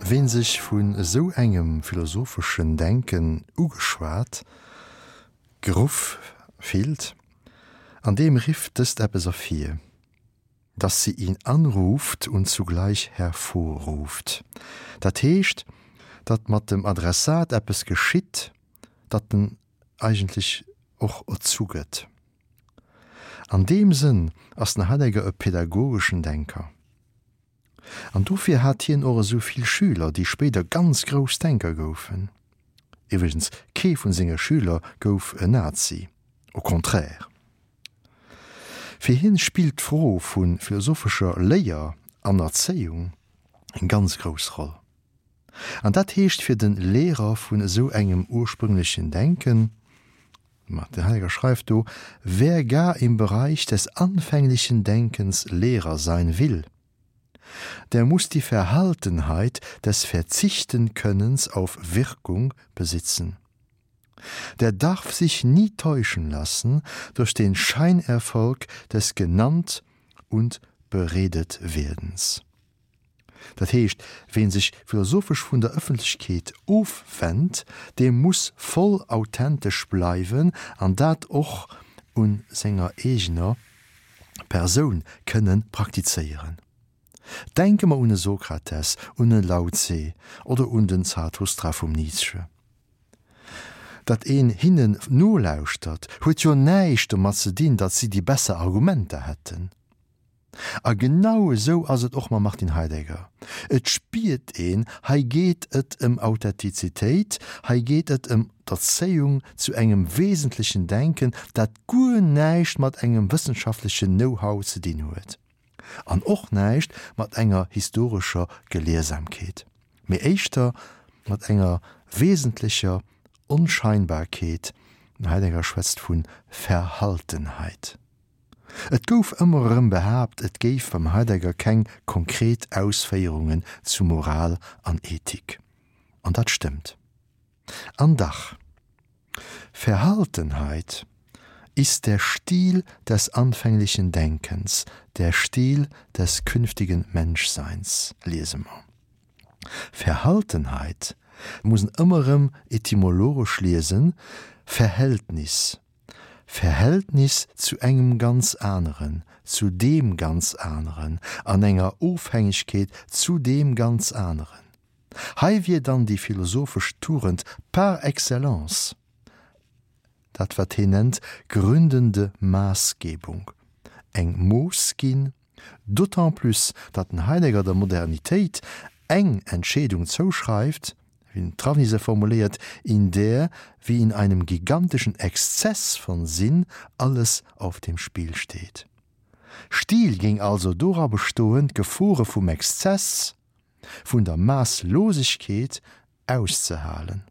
Ween sech vun esou engem philosopheschen Denken ugeschwat, geruff fillt, an deem rifft dëst eppes ervir. Dass sie ihn anruft und zugleich hervorruft. Dat heescht, datt mat dem Adressat eppes geschitt, datt en eigentlech och erzu gëtt. An deem Sënn ass den Heidegger e pädagogeschen Denker. An dofir hat hien och esou vill Schüler, déi spéider ganz grouss Denker goufen. Iwwregens, kee vun senge Schüler gouf en Nazi, au contraire. Fir hien spillt d'Fro vu philosophescher Léier an Erzéiung eng ganz grouss Roll. An dat heescht fir den Lehrer vun esou engem ursprünglechen Denken, Martin Heidegger schreift do, Wer gar im Bereich des anfänglichen Denkens Lehrer sein will, der muss die Verhaltenheit des Verzichtenkönnens auf Wirkung besitzen. Der darf sich nie täuschen lassen durch den Scheinerfolg des genannt und beredet Werdens. Dat heescht, ween sech philosophesch vun der Ëffentlechkeet ofwennt, dee muss voll authentesch bleiwen an dat och un senger eegener Persoun kënne praktizéieren. Denke mer un e Sokrates, un e Lao Tse oder un den Zarathustra vum Nietzsche. Datt een hinnen nolauschtert, huet jo näischt domat ze dinn, datt si déi besser Argumenter hätten. A genau esou ass et och mam Martin Heidegger. Et spiert een, hei geet et ëm Authentizitéit, hei geet et ëm d'Erzéiung zu engem wesentlechen Denken, dat guer näischt mat engem wëssenschaftlechen Know-how ze dinn huet an och näischt mat enger historescher Gelehrsamkeet, mee éischter mat enger wesentlecher Onscheinbarkeet, den Heidegger schwätzt vu Verhaltenheit. Et gouf ëmmer erëm behaapt, et géif beim Heidegger keng konkret Ausféierungen zu Moral an Ethik. An dat stëmmt. An dach, Verhaltenheit ist der Stil des anfänglichen Denkens, der Stil des künftigen Menschseins, liese mer. Verhaltenheit muss en ëmmer erëm etymologesch liesen, Verhältnis. Verhältnis zu engem ganz aneren, zu deem ganz aneren, an enger Ofhängegkeet zu deem ganz aneren. Hei wier dann déi philosophesch Tugend par excellence dat wat heen nennt gründende Maßgebung, eng Mooss ginn, D'autant plus, datt den Heidegger der Modernitéit eng Entscheedung zouschreift, wéi den Travny se formuléiert, in der, wie in einem gigantischen Exzess von Sinn, alles auf dem Spiel steht. Stil géing also dora bestoen, d'Gefore vum Exzess, vun der Maasslosegkeet auszehalen.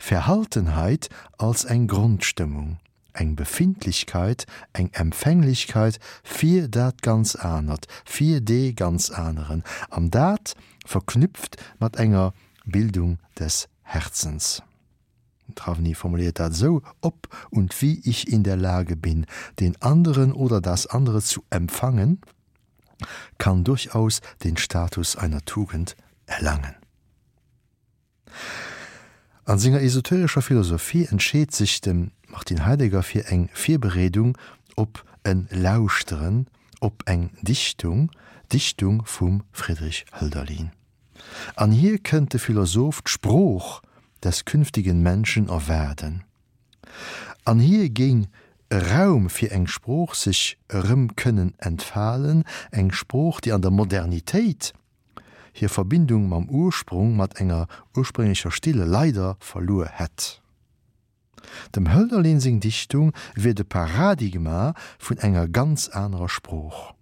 Verhaltenheit als eng Grondstëmmung, eng Befindlichkeit, eng Empfänglichkeit fir dat ganz anert, fir dee ganz aneren, an dat verknüpft mat enger Bildung des Herzens. Den Travny formuléiert dat esou, Ob und wie ich in der Lage bin, den anderen oder das andere zu empfangen, kann durchaus den Status einer Tugend erlangen. An senger esoterescher Philosophie entscheet sech de Martin Heidegger fir eng Virbereedung op en Lauschteren op eng Dichtung, d'Dichtung vum Friedrich Hölderlin. An hir kënnt de Philosoph d'Sprooch des künftigen Menschen erwaarden. An hir géing e Raum fir eng Sprooch sech erëm kënnen entfalen, eng Sprooch, déi an der Modernitéit hir Verbindung mam Ursprung, mat enger ursprénglecher Stille leider verluer hätt. Dem Hölderlin seng Dichtung wier de Paradigma vun enger ganz anerer Sprooch.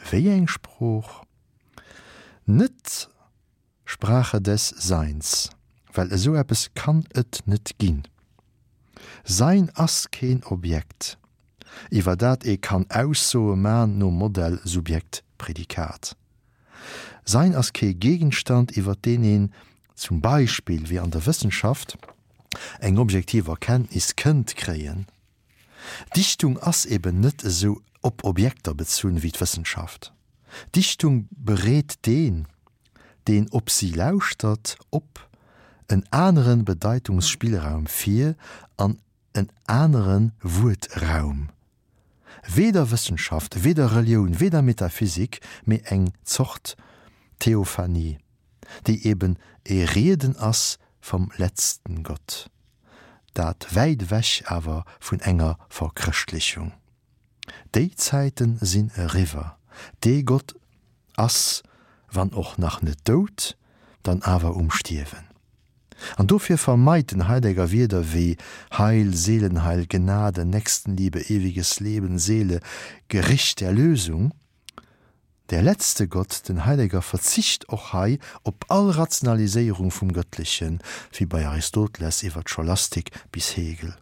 Wéi eng Sprooch? Net Sprache des Seins, well esou eppes kann et net ginn. Sein ass keen Objekt, iwwer dat ee kann Aussoe man nom Modell Subjekt-Prädikat. Sein ass kee Gegenstand, iwwer deen een, zum Beispill wéi an der Wëssenschaft, eng objektiv Erkenntnis kënnt kréien. Dichtung ass eben net esou op Objekter bezunn wéi d'Wëssenschaft. Dichtung bereet deen, deen op si lauschtert, op en anere Bedeitungsspillraum vir an en anere Wuertraum. Weder Wëssenschaft, weder Relioun, weder Metaphysik, mee eng Zort Theophanie, déi eben e Rieden ass vom letzten Gott. Dat wäit ewech awer vun enger Verchrëschtlichung. Déi Zäiten sinn eriwwer. Dee Gott ass, wann och nach net dout, dann awer um Stierwen. An dofir vermeit den Heidegger Wierder wéi Heil, Seelenheil, Gnade, Nächstenliebe, ewiges Leben, Seele, Gericht, Erlösung. Der letzte Gott, den Heidegger verzicht och hei op all Rationaliséierung vum Gëttlechen, wéi bei Aristoteles iwwer d'Scholastik bis Hegel.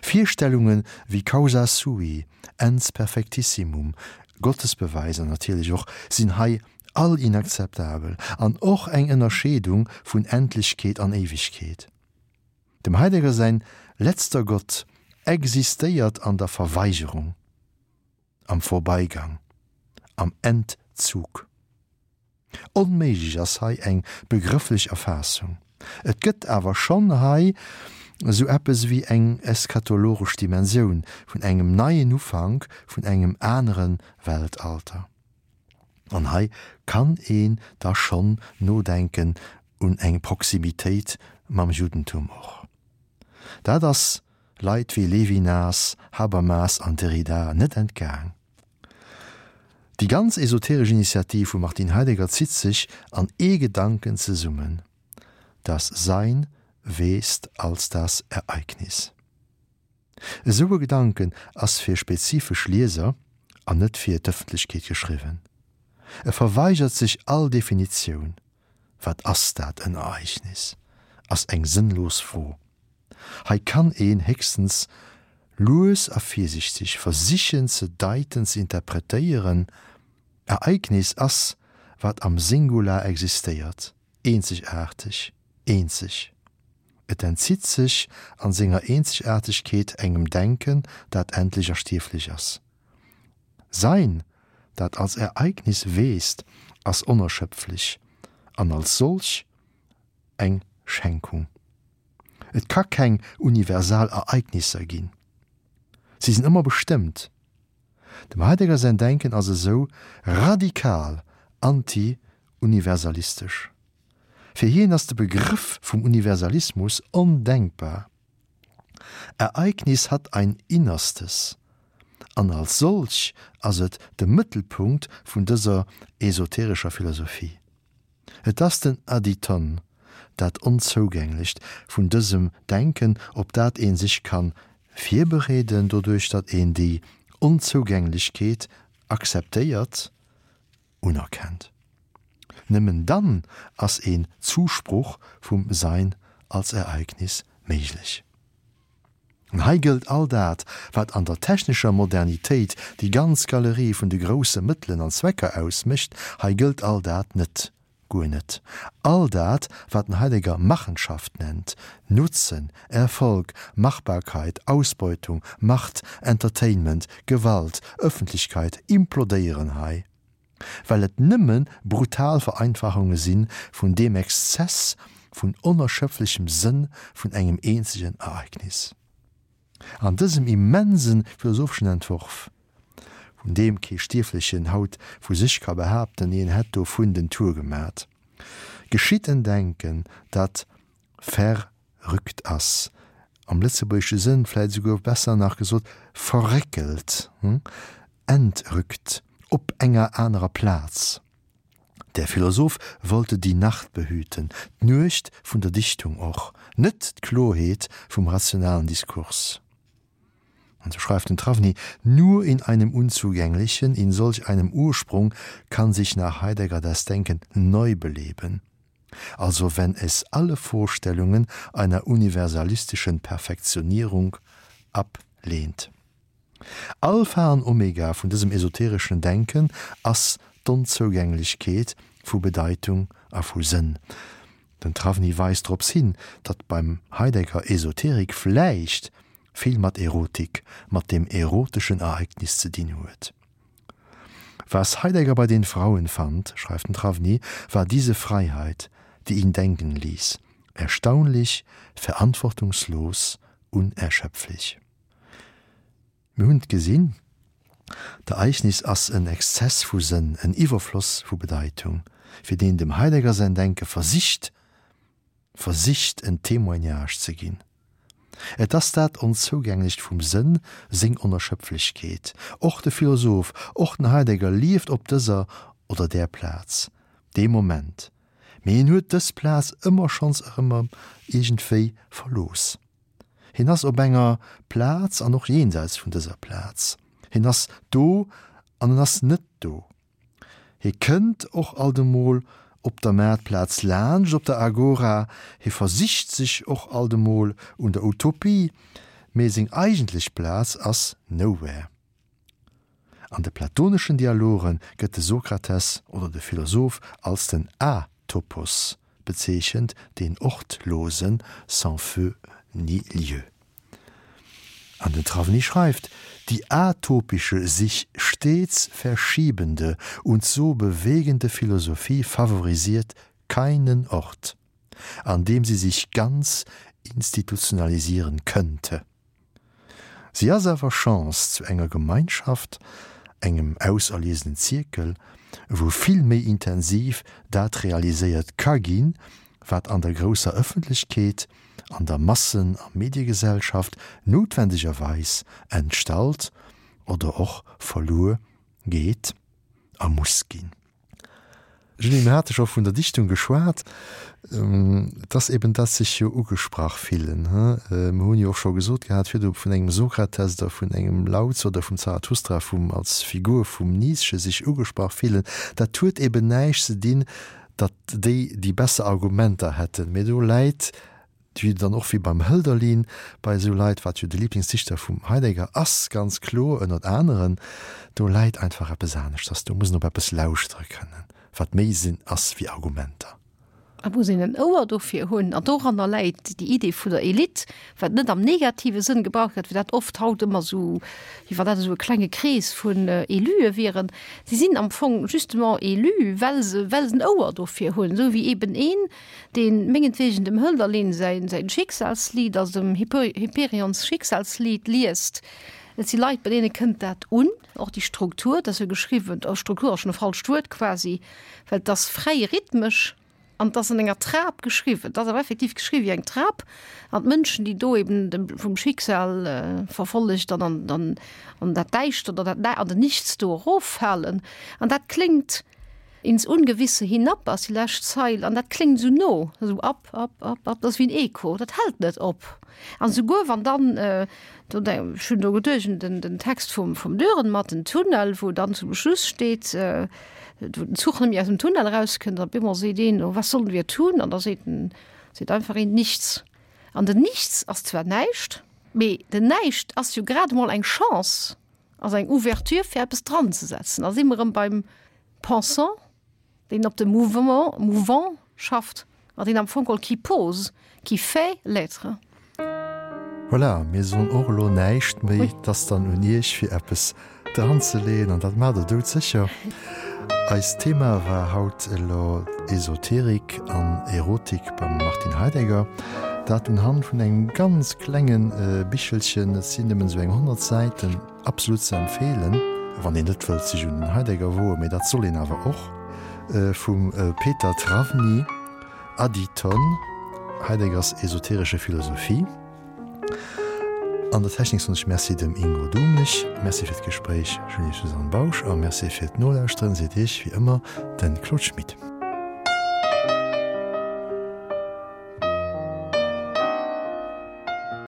Virstellunge wéi Causa sui, Ens perfectissimum, Gottesbeweiser natierlech och, sinn hei all inakzeptabel, an och eng Ënnerscheedung vun Endlechkeet an Éiwegkeet. Dem Heidegger säin letzter Gott existéiert an der Verweigerung, am Vorbeigang, am Entzug. Onméiglech ass hei eng begrëfflech Erfaassung. Et gëtt awer schonn hei esou eppes ewéi eng eschatologesch Dimensioun vun engem neien Ufank, vun engem anere Weltalter. An hei kann een da schonn nodenken un eng Proximitéit mam Juddentum och. Dat ass Leit wéi Levinas, Habermas an Derrida net entgaang. Déi ganz esoteresch Initiativ vum Martin Heidegger zitt sech an ee Gedanken zesummen, Das Sein wächst als das Ereignis. Esou e Gedanken ass fir spezifesch Lieser an net fir d'Ëffentlechkeet geschriwwen. E verweigert sech all Definitioun. Wat ass dat en Ereignis? ass eng sënnlos Fro. Hei kann een héchstens lues a virsichteg versichen ze deiten, ze interpretéieren. Ereignis ass, wat am Singular existéiert, eenzegaarteg, eenzeg. Et entzitt sech an senger Eenzegaartegkeet engem Denken, dat endlech a stierflech ass. Sein, dat als Ereignis weest, ass onerschöpflech an als solch eng Schenkung. Et ka keng universal Ereignisser ginn. Si sinn ëmmer bestëmmt. Dem Heidegger säin Denken ass esou radikal anti-universalistesch. Fir hien ass de Begrëff vum Universalismus ondenkbar. Ereignis hat ein Innerstes, an als solch ass et de Mëttelpunkt vun dëser esoterescher Philosophie. Et ass den Adyton, dat Onzougänglecht vun dësem Denken, op dat ee sech ka virbereeden, doduerch datt een déi Onzougänglechkeet akzeptéiert, unerkennt. Nëmmen dann ass een Zusproch vum Sein als Ereignis méiglech. An hei gëllt all dat, wat an der technescher Modernitéit déi ganz Galerie vun de grousse Mëttelen an Zwecker ausmécht, hei gëllt all dat net, guer net. All dat, wat den Heidegger Machenschaft nennt, Nutzen, Erfolg, Machbarkeit, Ausbeutung, Macht, Entertainment, Gewalt, Öffentlichkeit, implodéieren hei. Well et nëmme brutal Vereinfachunge si vun deem Exzess vun onerschöpflechem Sënn vun engem eenzegen Ereignis. An dësem immense philosopheschen Entworf, vun deem kee Stierflechen haut vu sech ka behaapten, hien hätt dovun den Tour gemat, geschitt en Denken, dat verrückt ass, am lëtzebuergesche Sënn vläit esouguer besser nach gesot verréckelt, entrückt, op enger anerer Plaz. Der Philosoph wollte die Nacht behüten, d'Nuecht vun der Dichtung och, net d'Klorheet vum rationalen Diskurs. An so schreift den Trawny, Nur in einem unzugänglichen, in solch einem Ursprung kann sich nach Heidegger das Denken neu beleben. Also wenn es alle Vorstellungen einer universalistischen Perfektionierung ablehnt. Alpha an Omega vun dësem esotereschen Denken ass d'Onzougänglechkeet vu Bedeitung a vu Sënn. Den Trawny weist drops hin, datt beim Heidegger Esoterik vläicht vill mat Erotik, mat dem eroteschen Ereignis ze dinn huet. Was Heidegger bei den Frauen fand, schreift den Trawny, war diese Freiheit, die ihn denken ließ, erstaunlich, verantwortungslos, unerschöpflich. Mir hunn et gesinn, D'Ereignis ass en Exzess vu Sënn, en Iwwerfloss vu Bedeitung, fir deen dem Heidegger säin Denke versicht, versicht en Témoignage ze ginn. Et ass dat Onzougänglecht vum Sënn, seng Onerschöpflechkeet. Och de Philosoph, och den Heidegger lieft op dëser oder där Plaz, dee Moment. Mee hien huet dës Plaz ëmmer schonns erëm iergendwéi verlooss. Hien ass op enger Plaz an och jenseits vun dëser Plaz. Hien ass do an en ass net do. Hie kënnt och alt emol op der Maartplaz laanscht, op der Agora, hie versicht sech och alt emol un der Utopie, mee seng eigentlech Plaz ass nowhere. An de platoneschen Dialoge gëtt de Sokrates oder de Philosoph als den Atopos bezeechent, den Ortlosen, sans feu ni lieu. An den Trawny schreift, Die atopische, sich stets verschiebende und so bewegende Philosophie favorisiert keinen Ort, an dem sie sich ganz institutionalisieren könnte. Si ass awer Chance zu enger Gemeinschaft, engem auserliesenen Zierkel, wou vill méi intensiv dat realiséiert ka ginn, wat an der grousser Ëffentlechkeet, an der Massen a Mediegesellschaft noutwendegerweis entstallt oder och verluer geet a muss ginn. Julie, mir hate scho vun der Dichtung geschwat. Et ass eben dat sech jo ugesprach fillen. Mir hunn jo och scho gesot gehat virdu vun engem Sokrates oder vun engem Lao Tzu oder vum Zarathustra, vum als Figur vum Nietzsche sech ugesprach fillen. Dat huet eben näischt ze dinn, datt déi déi besser Argumenter hätten, mee do läit wéi dann och wéi beim Hölderlin bei esou Leit, wat jo de Lieblingsdichter vum Heidegger ass, ganz kloer, ënnert aneren, do läit einfach eppes aneschters, do muss een op eppes lauschtere kënnen, wat méi Sinn ass wéi Argumenter. Et muss een en Ouer dofir hunn, an doranner läit déi Idee vun der Elite, wat net am negative Sënn gebraucht gëtt, wéi dat oft haut ëmmer esou, wéi wann dat esou e klenge Krees vun Élue wieren. Si sinn am Fong justement élu, well se, well se en Ouer dofir hunn, esou wéi eben een, deen mengetwegen dem Hölderlin säin säin Schicksalslied, also dem Hyperions Schicksalslied liest. Et si Leit, bei deene kënnt dat un, och déi Struktur, dat ass jo geschriwwen, oh Struktur ass schonn e falscht Wuert quasi, well et ass fräi rhythmesch an et ass an enger Trap geschriwwen. Et ass awer effektiv geschriwwen wéi eng Trap an d'Mënschen, déi do eben dem vum Schicksal verfollegt an an an an dat Däischtert an dat an den Nichts do eroffalen an dat kléngt, Ins Ungewisse hinab ass déi lescht Zeil, an dat kléngt esou no, esou ab, ab, ab, ab, dat ass wéi en Echo, dat hält net op. An esouguer wann dann, do ech hunn do geduecht un den, den Text vum, vum Dürrenmatt, den Tunnel, wou dann zum Schluss steet, wou den Zuch net méi aus dem Tunnel erauskënnt, an op eemol seet een, oh, was sollen wir tun? An da seet en, seet einfach een, nichts. An den Nichts ass zwar näischt, mee den Näischt ass jo grad emol eng Chance. Ass eng Ouverture fir eppes dran ze setzen. Da si mer erëm beim Pensant, deen op de Mouvement, mouvant schafft an deen am Fong geholl qui pose, qui fait l'être. Voilà, mir soen och elo näischt méi. Et ass dann un Iech fir eppes dran ze leeën an dat maacht Der doudsécher. Eist Thema war haut elo Esoterik an Erotik beim Martin Heidegger. Dat unhand vun engem ganz klenge Bichelchen, et sinn nëmmen esou eng 100 Säiten, absolut ze empfeelen, wann een net wëllt sech un den Heidegger woen, mee dat soll een awer och, vum Peter Trawny, Adyton, Heideggers esoterische Philosophie. An der Technik soen ech Merci dem Ingo Dumlich, Merci fir d'Gespréich Julie-Suzanne Bausch a Merci fir d'Nolauschteren seet Iech wéi ëmmer de Claude Schmit.